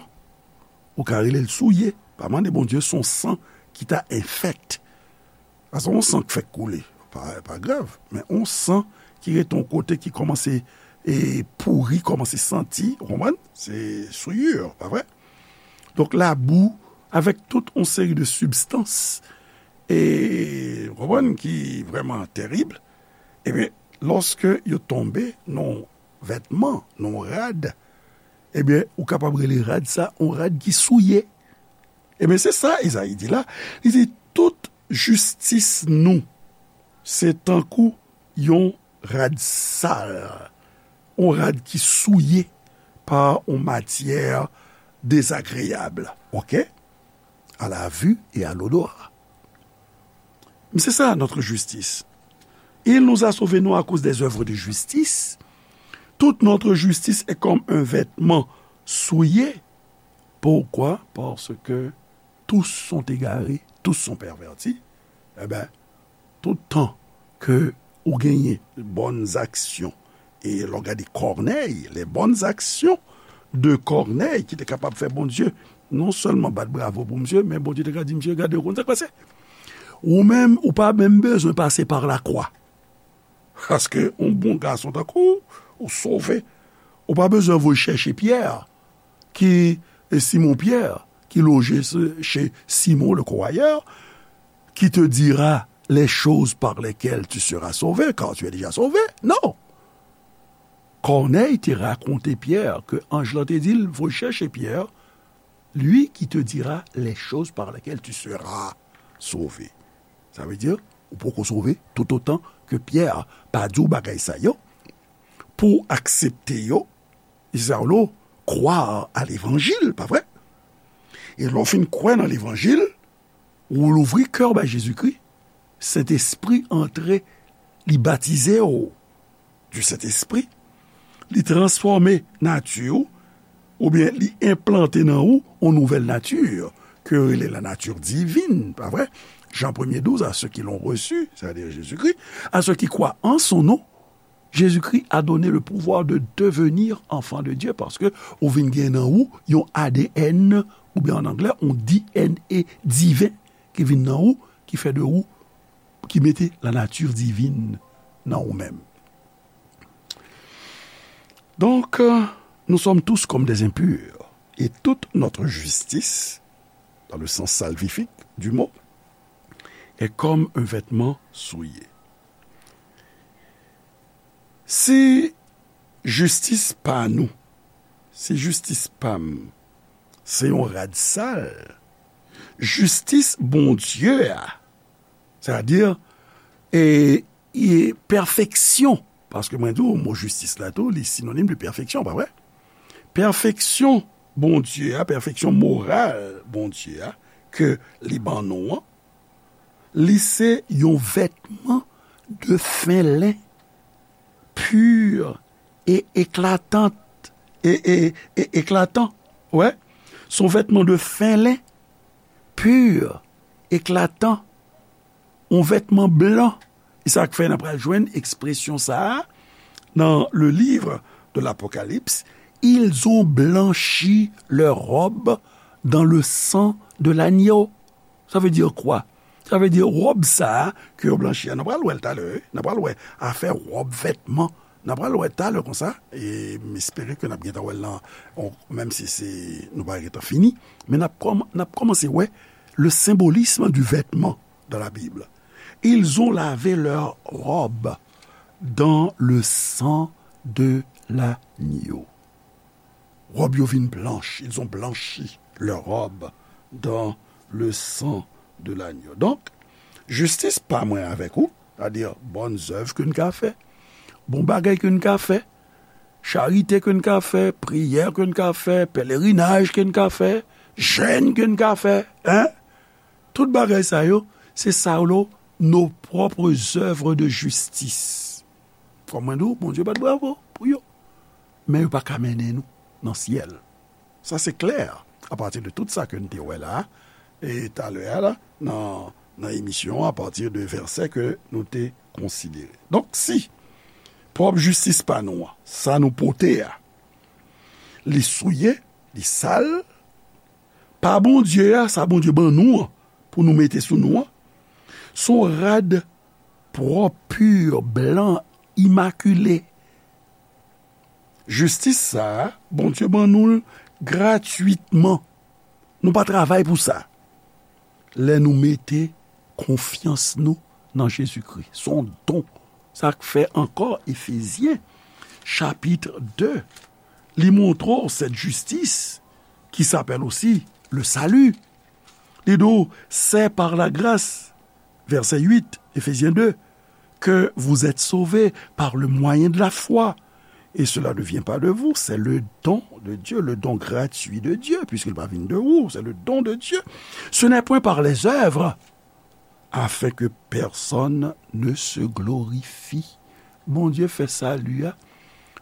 ou ka rele l souye. Pa mande Bondye se yon san ki ta enfèkt. Paske yon san k fèk koule, pa, pa grav. Men yon san ki rete yon kote ki kòmanse, e, pouri, kòmanse santi, ou konprann? Se souillure, pa vre? Donk, labou, avèk tout yon seri de sibstans, e, ou konprann, ki vrèman terib, ebyen, lòske yo tonbe nan yon vètman, nan yon rad, ebyen, ou kapab rele rad sa yon rad ki souye. Ebyen, se sa Ezayi di la. Li di, tout jistis nou, se tankou yon rad sal, yon rad ki souye pa yon matyè dezagreyab, ok? À la vue et à l'odorat. C'est ça notre justice. Il nous a sauvés non à cause des œuvres de justice. Toute notre justice est comme un vêtement souillé. Pourquoi? Parce que tous sont égarés, tous sont pervertis. Eben, tout tan ke ou genyen bòn zaksyon, e lè w gade Kònèy, les bonnes actions de Corneille, ki te kapab fè Bondye non sèlman bat bravo pou misye, men Bondye te ka di misye, gade, ou konn sa k pase? Ou menm, ou pa menm bezwen pase pa lakwa. Paske yon bon gason tankou w, ou sove. Ou pa bezwen voye chèche Pyè, ki, e Simon Pyè, ki loje se- chez Simon le croyeur, qui te dira les choses par lesquelles tu seras sauvé, car tu es déjà sauvé. Non. Kònèy te rakonte Pyè ke anj lan te di l, voye chèche Pyè, lui qui te dira les choses par lesquelles tu seras sauvé. Sa vle di, ou poko sove toutotan ke Pyè pa di w bagay sa yo, pou w aksepte yo, Isaulo, croire à l'évangile, pa vre? E lè w fin kwè nan levanjil, ou louvri kè w bay Jezikri, Sentespri antre, li batize w du Sentespri, li transfòme nati w, oubyen li enplante nan ou yon nouvèl nati, ke yo rele la nature divine, pa vre? Jean premier douze, à ceux qui l'ont reçu, c'est-à-dire Jésus-Christ, à ceux qui croient en son nom, Jésus-Christ a donné le pouvoir de devenir enfant de Dieu, paske ou vin gen nan ou yon A D N, oubyen an anglè, yon D N A diven ki vin nan ou, ki fè de ou, ki mete la nature divine nan ou menm. Donc, euh, nous sommes tous comme des impurs, et toute notre justice, dans le sens salvifique du mot, est comme un vêtement souillé. Si jistis pa nou, si jistis pa m, se yon rad sal, jistis Bondye a, sètadi, e, e pèfeksyon, paske mwen di w, mo jistis la tou, li sinonim de pèfeksyon, pa vre? Pèfeksyon Bondye a, pèfeksyon moral Bondye a, ke li ban nou an, li se yon vètman de fen len, pur e eklatant, e, e, e eklatan. Wè, se yon vètman de fen len, pur, eklatan, yon vètman blan. E sa k fè n ap pral jwenn ekspresyon sa a nan le livre de l'Apocalypse, ils ont blanchi leur robe dans le sang de l'agneau. Ça veut dire quoi? Sa vle di wòb sa a ke yo blanchi a, n ap pral wè l talè, wi. N ap pral wè afè wòb, vètman. N ap pral wè talè konsa, e m espere ke n ap gentan wè l nan, on, menm si se, nou pa gentan fini, men n ap kòm-, n ap kòmanse wè le symbolisme du vêtement dans la Bible. Ils ont lavé leur robe dans le sang de l'agneau. Wòb yo vin blanch, ils ont blanchi leur robe dans le sang de l'agneau. Donk, jistis pa mwen avèk ou, sètadi bòn zèv ke n ka fè, bon bagay ke n ka fè, charite ke n ka fè, priyè ke n ka fè, pelerinaj ke n ka fè, jèn ke n ka fè, en? Tout bagay sa yo, se sa yo, nos propres œuvres de justice. Kòm mwen di w, Bondye bat bravo pou yo. Men yo pa ka mennen nou nan syèl. Sa se klè, apati de tout sa ke n te wè la, e talè a la, nan, nan emisyon an, apati de vèsè ke nou te konsidere. Donk, si pwòp jistis pa nou an, sa nou pote a, li souye, li sal, pa Bondye a, sa Bondye ban nou an, pou nou mete sou nou an, se yon rad pwòp, pur, blan, imakile. Jistis sa a, Bondye ban nou l gratwitman. Nou pa travay pou sa. Lè nou mete konfyans nou nan Jezikri, se yon don. Sa k fè ankò Efezyen, chapit de, li montre w cette justice qui s'appelle aussi le salut. Li di w, c'est par la grâce, verset huit, Éphésiens deux, que vous êtes sauvés par le moyen de la foi. Et cela ne vient pas de vous, c'est le don de Dieu, le don gratuit de Dieu, puisqu'il va venir de vous, c'est le don de Dieu. Ce n'est point par les œuvres, afin que personne ne se glorifie. Bondye fè sali a,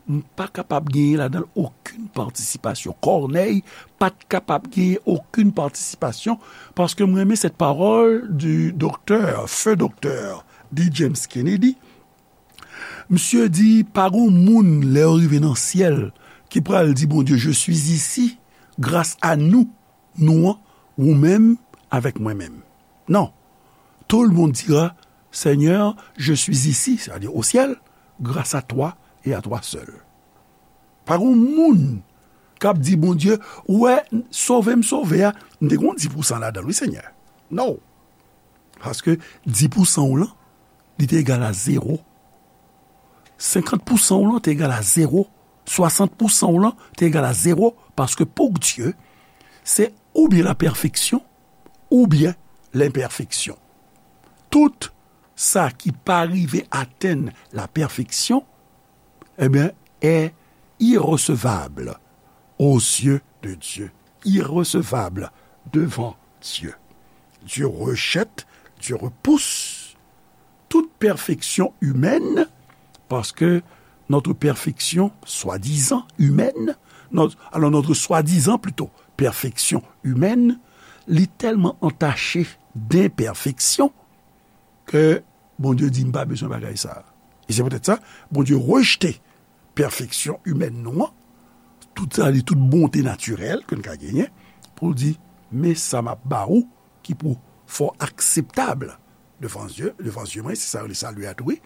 m pa kapab genyen ladan l okenn patisipasyon. Kònèy pa t kapab genyen okenn patisipasyon, paske m renmen cette parole du docteur, feu docteur D. James Kennedy. Misye di, pa gon moun, lè yo rive nan syèl, ki pral di Bondye, je suis ici, grâce à nous, nou an, ou menm, avèk mwen menm. Non. Tout le monde dira, Seigneur, je suis ici, c'est-à-dire au ciel, grâce à toi et à toi seul. Pa gon moun k ap di Bondye, ou wè, sove m sove a, m te gon dis pousan ladan l, wi, Senyè. Non. Paske dis pousan w lan, li te egal a zewo. Senkant pousan w lan te egal a zewo. Swasant pousan w lan te egal a zewo. Paske pou Dye, se oubyen la perfection, oubyen l'imperfection. Tout sa ki pa rive atenn la perfection, eh bien, est irrecevable aux yeux de Dieu. Irrecevable devant Dieu. Dieu rejette, Dieu repousse toute perfection humaine, parce que notre perfection, soi-disant humaine, notre, alors notre soi-disant plutôt perfection humaine, li tèlman antache d'imperfection ke Bondye di, "M pa bezwen bagay sa a." E se poutèt sa, Bondye rejte pèfeksyon imèn nou an, tout sa, tout bonte natirèl ke n ka genyen, pou l di, "Men sa m ap ba ou ki pou fè w akseptab devan zye, devan zye mwen," se sa yo rele sali a tou, wi.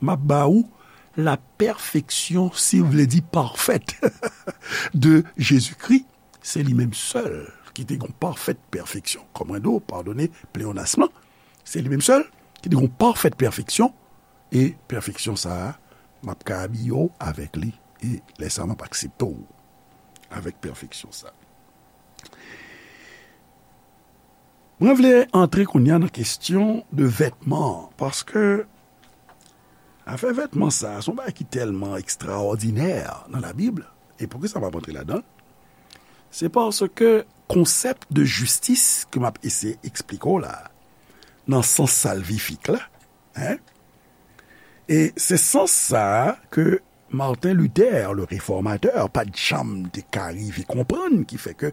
"M ap ba ou la perfection, si w vle di parfaite, de Jésus-Christ." Se li menm sèl ki te gon pafèt pèfeksyon. Kòm mwen di w, padone pleonasm lan, se li menm sèl ki te gon pafèt pèfeksyon, e pèfeksyon sa a, m ap ka abiye w avèk li, e lè sa a, m ap aksepte w avèk pèfeksyon sa a. Mwen vle antre kounye a nan kesyon de vètman an, paske afè vètman sa a, se yon bagay ki tèlman ekstraòdinè nan Labib, e poukisa m ap antre ladan l? Se paske konsèp de jistis ke m ap eseye eksplike w la, nan sans salvifik la, en, e se sans sa a ke Martin Luther, le réformateur, pa t janm te ka rive konprann, ki fè ke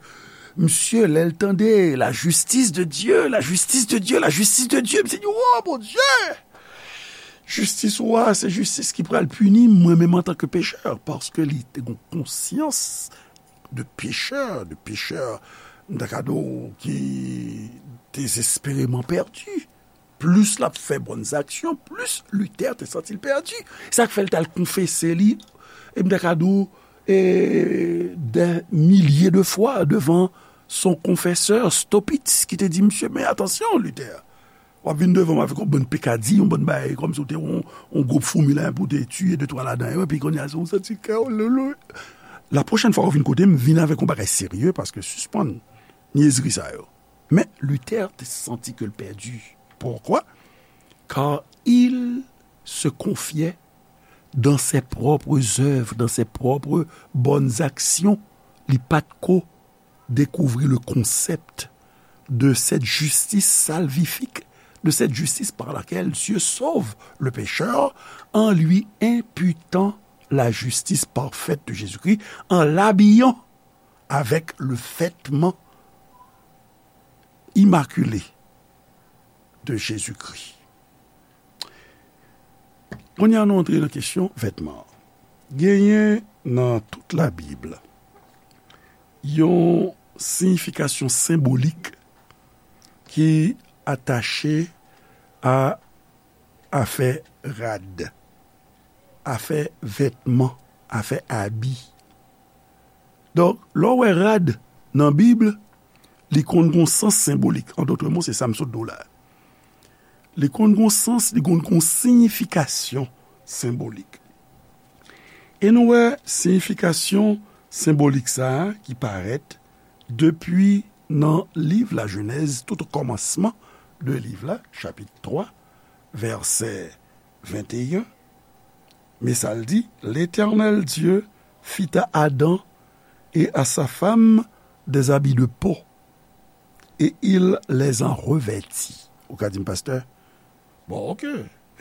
misye, lè l tande la justice de Dieu, la justice de Dieu, la justice de Dieu, misye di, "Oh, Bondye! Jistis ou a, se jistis ki pral pini mwen menm antanke pechè," paske li te gon konsyans de pechè, de pechè, m ta ka di w, ki dezespereman pèdi. Plis l ap fè bòn aksyon, plis Luther te santi l pèdi. Sa k fè l t al konfese li, e m ta ka di w, e, dè milye de fwa devan son konfesè, Staupitz, ki te di, "Misye, men atansyon, Luther. W ap vin devan m avèk yon bann pekadi, yon bann bagay, kòmsi w te yon, yon gwoup foumi la, pou w te tiye de twa ladan yo, epi kounye a, se yon santi kè w, lolo." La pwochèn fwa w vin kote m, vin avèk yon bagay serye, paske sispann nyezri sa yo. Men Luther te santi ke l pèdi. Pourquoi? Car il se confiait dans ses propres œuvres, dans ses propres bonnes actions. Li pa t ko découvrir le concept de cette justice salvifique, de cette justice par laquelle Dieu sauve le pécheur en lui imputant la justice parfaite de Jésus-Christ, en l'habillant avec le vêtement immaculé de Jésus-Christ. Kounye a nou antre nan kesyon vètman an. Genyen nan tout Labib yon siyifikasyon senbolik ki atache a afè rad, afè vètman, afè abi. Donk, lè w wè rad nan Bib, li konn gon sans senbolik. An dòt mo, se sa m sot di w la. Li konn gon sans, li konn gon siyifikasyon senbolik. E nou wè siyifikasyon senbolik sa a ki parèt depi nan liv Lajenèz, tout o kòmansman de liv la, chapit twa, vèsè venteyen. Men sa l di, L'Éternel Dieu fit à Adam et à sa femme des habits de peau, et il les en revêtit. Ou ka di m, pastè, bon, oke,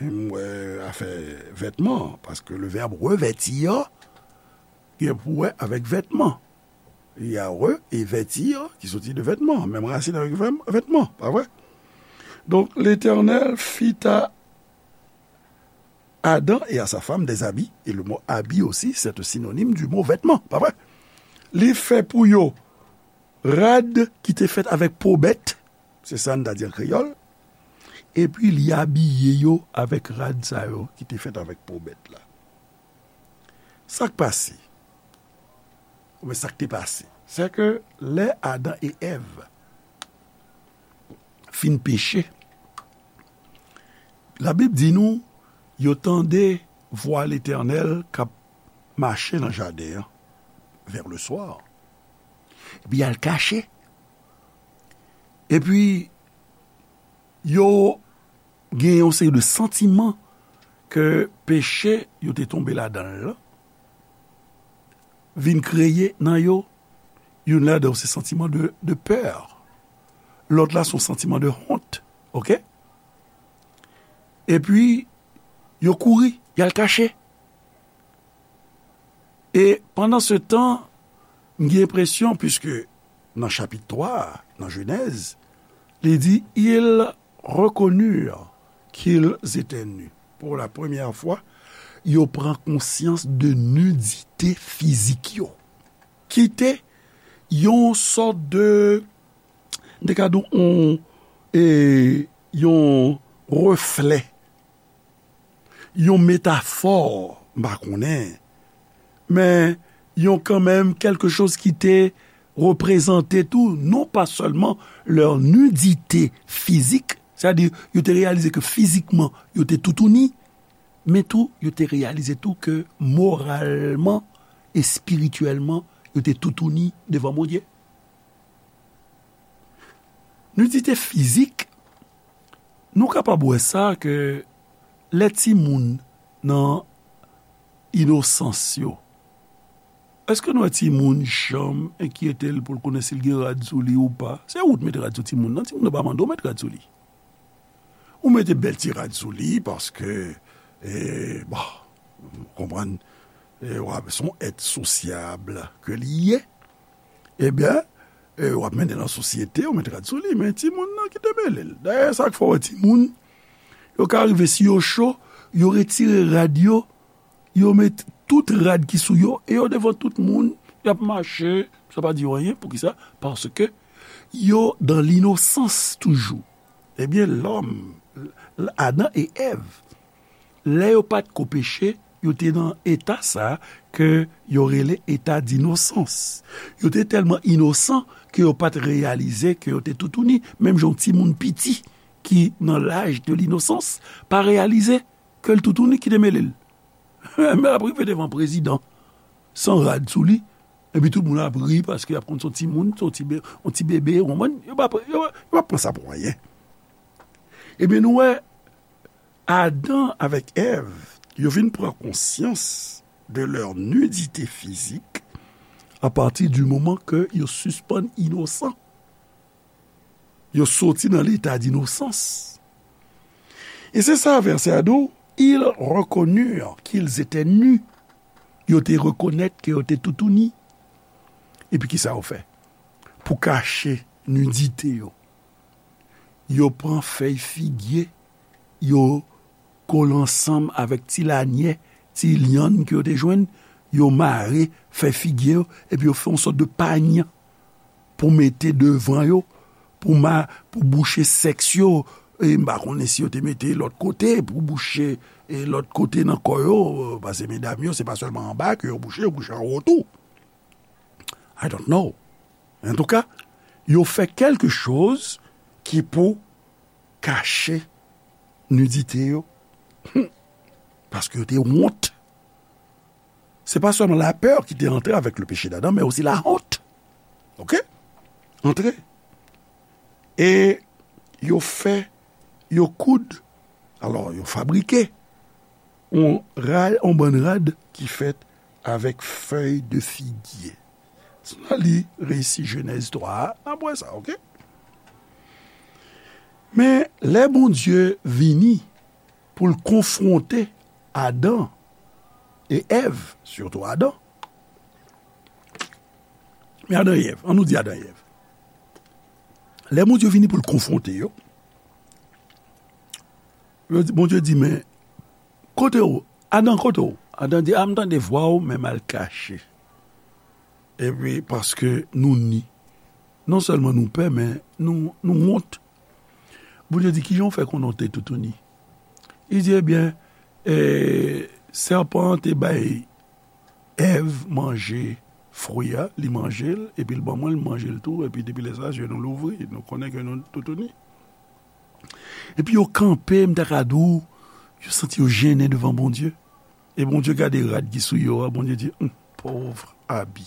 m wè afè vètman, paske le vèb revètir gen pou wè avèk vètman. Il y a re e vètir ki soti de vètman, menm rasin avèk vèm, vètman, pa vre? Donk, Letènèl fit a Adam et à sa femme des habits, et le mot habit aussi, c'est un synonyme du mot vêtement, pa vre? Li fè pou yo rad ki te fèt avèk po bèt, se sa n ta di an kreyòl, epi li abiye yo avèk rad sa yo ki te fèt avèk po bèt la. Sa k pase? Oubyen sa k te pase? Se ke lè Adan e Èv fin peche, Labib di nou, yo tande vwa Letènèl k ap mache nan jaden an, vers le soir. Epi y al kache. Epi, yo gen yon seri de santiman ke peche yo te tonbe ladan l lan vin kreye nan yo. Youn ladan yo se santiman de, de pè. Lòt la se yon santiman de wont. Oke? Epi, yo kouri, y al kache. E pandan se tan, m gen enpresyon, piske nan chapit twa a, nan Jenèz, li di, ils reconnurent qu'ils étaient nus. Pour la première fois, yo pran konsyans de nidite fizik yo. Ki te yon sòt de, de ka di w, yon, e, yon reflè, yon metafò, m pa konnen, men yon kanmenm kèlke choz ki te reprezante tou, non pa sèlman leur nudité physique, sètadi yo te reyalize ke fizikman yo te toutouni, men tou yo te reyalize tou ke moralman, espirityèlman, yo te toutouni devan Bondye. Nidite fizik, nou kapab wè sa ke lè timoun nan inosans yo, èske nou wè timoun janm enkyete l pou l konnen si l gen rad sou li ou pa? Se ou t met rad sou timoun nan, timoun nan pa mande w met rad sou li. Ou mete bèl ti rad sou li paske, e, bon, ou konprann, e, w ap, se yon èt sosyab ke li ye. Ebyen, e, w ap mennen nan sosyete, ou met rad sou li, men timoun nan ki te mele l. Dayè, sa k fè w wè timoun, yo ka rive si yo cho, yo retire rad yo, yo met tout rad ki sou yo, e yo devan tout moun, y ap mache, sa pa di yo anyen. Poukisa? Paske yo dan linosans toujou. Ebyen, lòm, Adan e Èv, lè yo pa t ko peche, yo te nan eta sa ke yo rele eta dinosans. Yo te tèlman inosan ke yo pa t reyalize ke yo te toutouni, menm jan yon timoun piti ki nan laj de linosans pa reyalize ke l toutouni ki te mele l. Men l ap rive devan prezidan san rad sou li, epi tout moun ap ri paske y ap konn se yon timoun, se yon ti be-, yon ti bebe, ou konprann? Yo pa, yo, yo pa pran sa pou anyen. Ebyen, nou wè, Adan avèk Èv, yo vin pran konsyans de leur nudité physique à partir du moment ke yo sispann inosan. Yo soti nan leta dinosans. E se sa vèsè a di w, ils reconnurent qu'ils étaient nus. Yo te rekonèt ke yo te toutouni. Epi kisa yo fè? Pou kache nidite yo, yo pran fèy figye, yo kole ansanm avèk ti lanyè, ti lyann ke yo te jwenn, yo mare fèy figye yo, epi yo fè yon sòt de pany pou mete devan yo, pou ma-, pou bouche sèks yo. E m pa konnen si yo te mete lòt kote, pou bouche, e, lòt kote nan kò yo, paske medam yo, se pa sèlman anba ke yo bouche, yo bouche anwo tou. I don't know. Antouka, yo fè kèlke choz ki pou kache nidite yo. Paske yo te wont. Se pa sèlman lapè ki te antre avèk le péché d'Adam, men osi la honte. Oke? Antre. E yo fè, yo koud, alò, yo fabrike yon rad, yon bann rad ki fèt avèk fèy de figye. Si n al li resi Jenèz twa a, n ap wè sa, oke? Men lè Bondye vini pou l konfwonte Adan e Èv, sitou Adan, men Adan e Èv, ann nou di Adan e Èv. Lè Bondye vini pou l konfwonte yo, Bondye di, men, kote w? Adan, kote w? Adan di, a, m tande vwa w, men m al kache. Epi, paske nou ni. Non sèlman nou pè, men nou, nou wont. Bondye di, kijan w fè konnen w te toutouni? Li di, ebyen, e, sèpan an te bay Èv manje fwi a, li manje l, epi l ban mwen, l manje l tou, epi depi lè sa, zye nou louvri, nou konnen ke nou toutouni. Epi yo kanpe, m ta ka di w, yo santi yo jennen devan Bondye. E Bondye gade rad ki sou yo a, Bondye di, hum, pòv abi.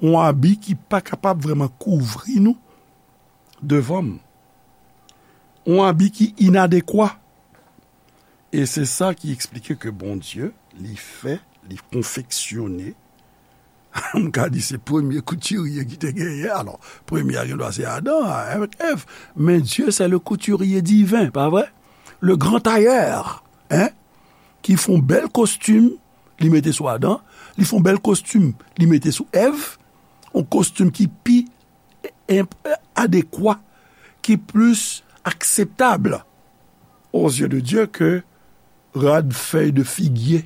Yon abi ki pa kapab vrèman kouvri nou devan m. Yon abi ki inadekwa. E se sa ki eksplike ke Bondye, li fè, li konfeksyone, m ka di se premye koutirye ki te genyen. Alò, premye a gendwa se Adan avèk Èv. Men Dieu, c'est le couturier divin, pa vre? Le grand tailleur, hein? Ki fè yon bèl kostim, li mete sou Adan, li fè yon bèl kostim, li mete sou Èv, yon kostim ki pi enp-, adekwa, ki plis akseptab aux yeux de Dieu ke rad fèy de figye.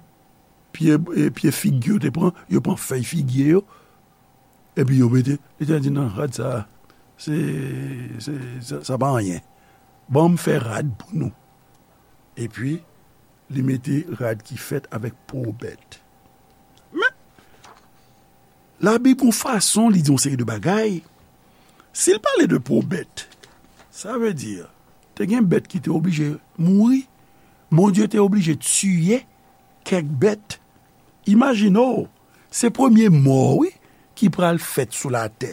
Pye, e, pye fig yo te pran, yo pran fèy figye yo, epi yo mete, li te di, non, rad sa, se, se, sa, sa pa anyen. Ban m fè rad pou nou. Epi, li mete rad ki fèt avèk po bèt. Men, Labib, yon fason, li di yon seri de bagay. Si l pale de po bèt, sa vle di, te gen bèt ki te oblije mouri. Bondye te oblije tiye kèk bèt. Imajine w, se premye mò, wi, ki pral fèt sou latè.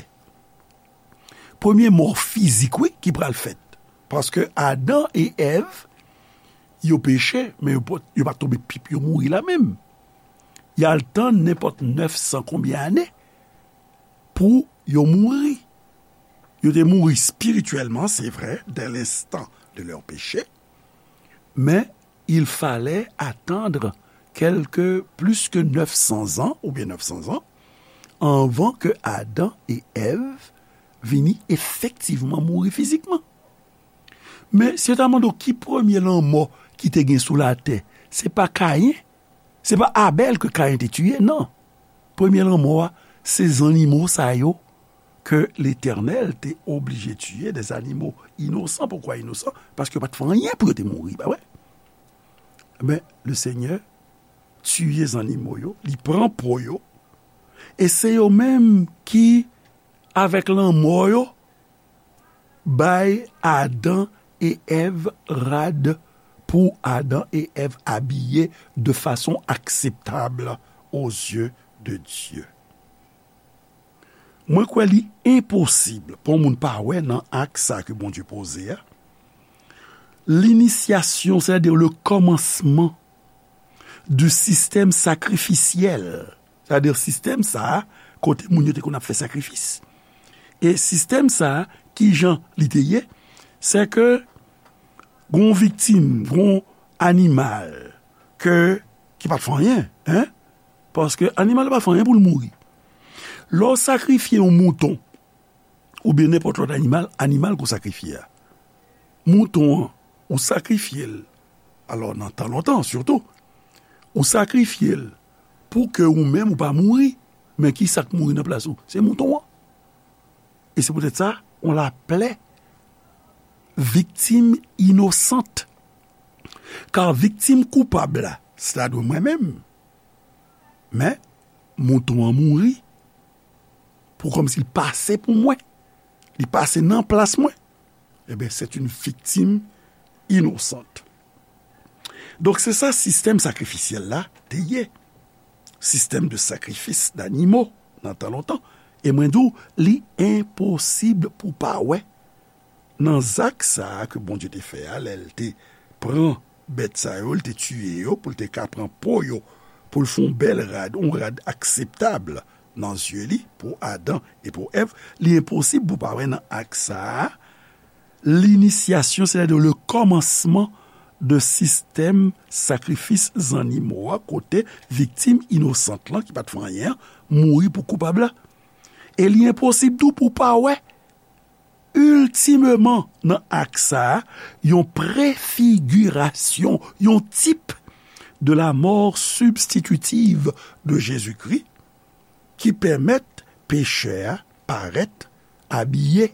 Premye mò fizik, wi, ki pral fèt. Paske Adan e Èv, yo peche, men yo pa, yo pa tonbe pip, yo mouri la menm. Y al tann nenpòt nèf san konbyen ane pou yo mouri. Yo te mouri espirityèlman, se vre, dès l'instant de leur péché, men il fallait attendre quelque plus que neuf cents ans, oubyen nèf san zan, anvan ke Adan e Èv vini efektivman mouri fizikman. Men, si yo ta mande w ki premye lanmò ki te gen sou latè, se pa Kayen, se pa Abèl ke Kayen te tiye, non. Premye lanmò a, se zannimo sa yo ke Letènèl te oblije tiye, des animaux innocents. Poukwa inosan? Paske yo pa t fè anyen pou yo te mouri, pa vre? Men, le Senyè tiye zannimo yo, li pran po yo, e se yo menm ki, avèk lanmò yo, bay Adan e Èv rad pou Adan e Èv abiye de fason akseptab aux yeux de Dieu. Mwen kwè li enposib pou yon moun pa wè nan ak sa ke Bondye poze a, linisyasyon, sètadi le kòmansman du système sacrificiel. Sètadi sistèm sa a, kote moun yo te konn ap fè sakrifis. E sistèm sa a, kijan li te ye? Se ke gon viktim, gon animal ke, ki pa t fè anyen, en? Paske animal pa fè anyen pou l mouri. Lè w sakrifye yon mouton, oubyen nenpòt lòt animal, animal ke w sakrifye a. Mouton an, ou sakrifye l, alò nan tan lontan sitou, ou sakrifye l pou ke ou menm ou pa mouri, men ki sa k mouri nan plas ou? Se mouton an. E se poutèt sa, on l'appelait victime innocente. Kar viktim koupab la, se ta dwe mwen menm. Men, mouton an mouri pou kòmsi l pase pou mwen. Li pase nan plas mwen. Eben, c'est une victime innocente. Donk, se sa sistèm sakrifisyèl la te ye. Système de sacrifice d'animaux, nan tan lontan. E mwen di w, li enposib pou pa wè nan zak sa a ke Bondye te fè a, lè l te pran bèt sa yo, l te tiye yo, pou l te ka pran po yo, pou l fè yon bèl rad, yon rad akseptab nan zye li, pou Adan e pou Èv, li enposib pou pa wè nan ak sa a, Linisyasyon, sètadi le kòmansman de sistèm sakrifis zannimo a, kote viktim inosant lan, ki pa t fè anyen an, mouri pou koupab la. E li enposib tou pou w pa wè, iltimeman, nan ak sa a, yon prefigirasyon, yon tip de la mort substitutive de Jésus-Christ, ki pèmèt pechè a parèt abiye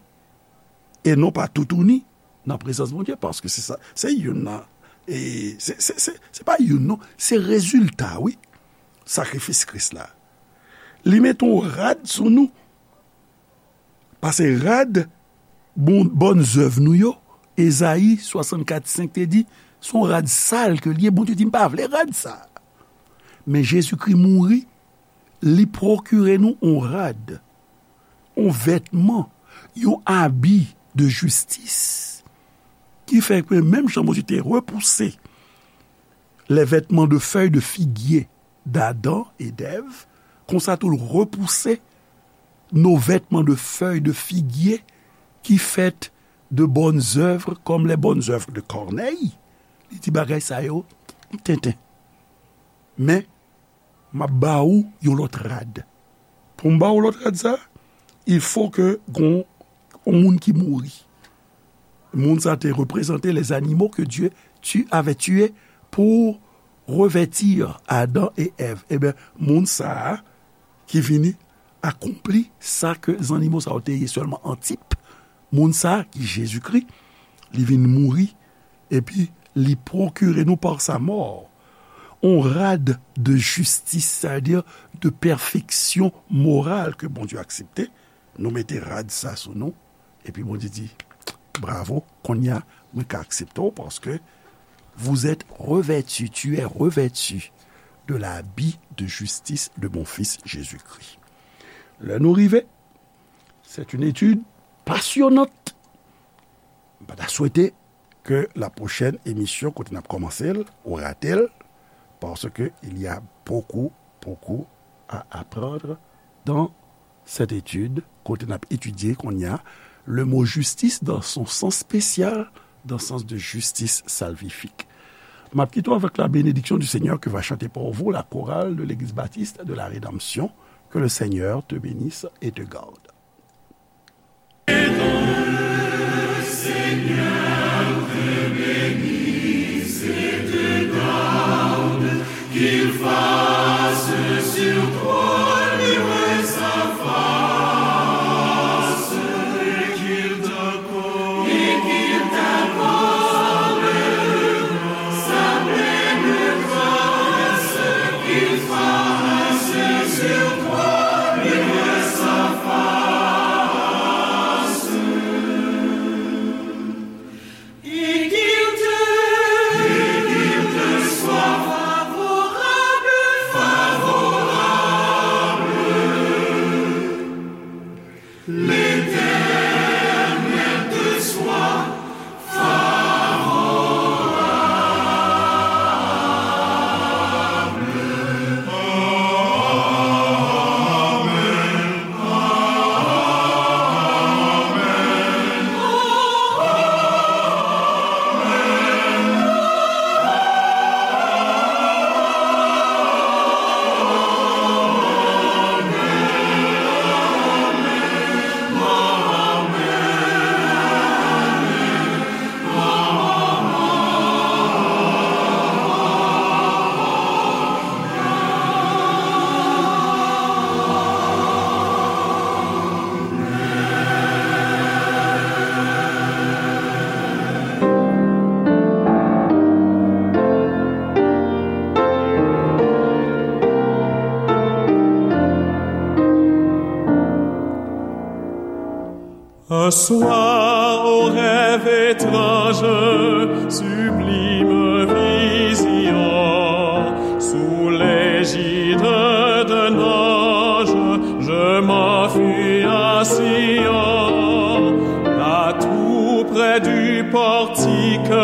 e non pa toutouni nan prezans Bondye, paske se sa, se youn nan, e se, se, se, se pa youn non, se rezilta, wi, sakrifis Kris la. Li mete yon rad sou nou, pase rad bon, bòn zèv nou yo, Ezayi swasannkat senk te di, se yon rad sal ke l ye, Bondye di, "M pa vle rad sa." Men Jezikri mouri, li pwokire nou yon rad, yon vètman, yon abi de jistis, ki fè ke menm jan Bondye te repouse les vêtements de feuilles de figuier d'Adam et d'Ève, konsa tou l repouse nos vêtements de feuilles de figuier qui faites de bonnes œuvres comme les bonnes œuvres de Corneille. Li di bagay sa yo, tenten. Men, m ap ba ou yon lòt rad. Pou m ba ou lòt rad sa, il faut que gon yon moun ki mouri. Moun sa te reprezante les animaux que Dieu tu, avait tués pour revêtir Adam et Ève. Ebyen, moun sa a ki vini akonpli sa ke zannimo sa yo te ye sèlman an tip. Moun sa a ki Jezikri, li vin mouri, epi li pwokire nou par sa mort on rad de jistis, sètadi de pèfeksyon moral ke Bondye aksepte. Nou mete rad sa sou nou, epi Bondye di, "Bravo, kounye a, mwen ka aksepte w, paske vous êtes revêtu, tu es revêtu de l'habit de justice de mon Fils Jésus-Christ." Lè nou rive, c'est une étude passionnante. M pa ta swete ke la pwochèn emisyon kote n ap kòmanse l, ou rate l, parce que il y a beaucoup, beaucoup à apprendre dans cette étude, kote n ap etidye kounye a le mot justice dans son sens spécial, dans le sens de justice salvifique. M ap kite w avec la bénédiction du Seigneur que va chanter pour vous la chorale de l'Église baptiste de la Rédemption. Que le Seigneur te bénisse et te garde. Un soir, au rêve étrange, sublime vision, sous l'égide d'un ange, je m'enfuis à Sion. Là, tout près du portique,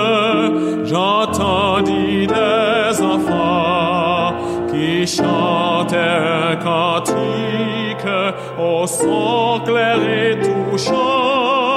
j'entendis des enfants qui chantaient un cantique au son clair et touchant.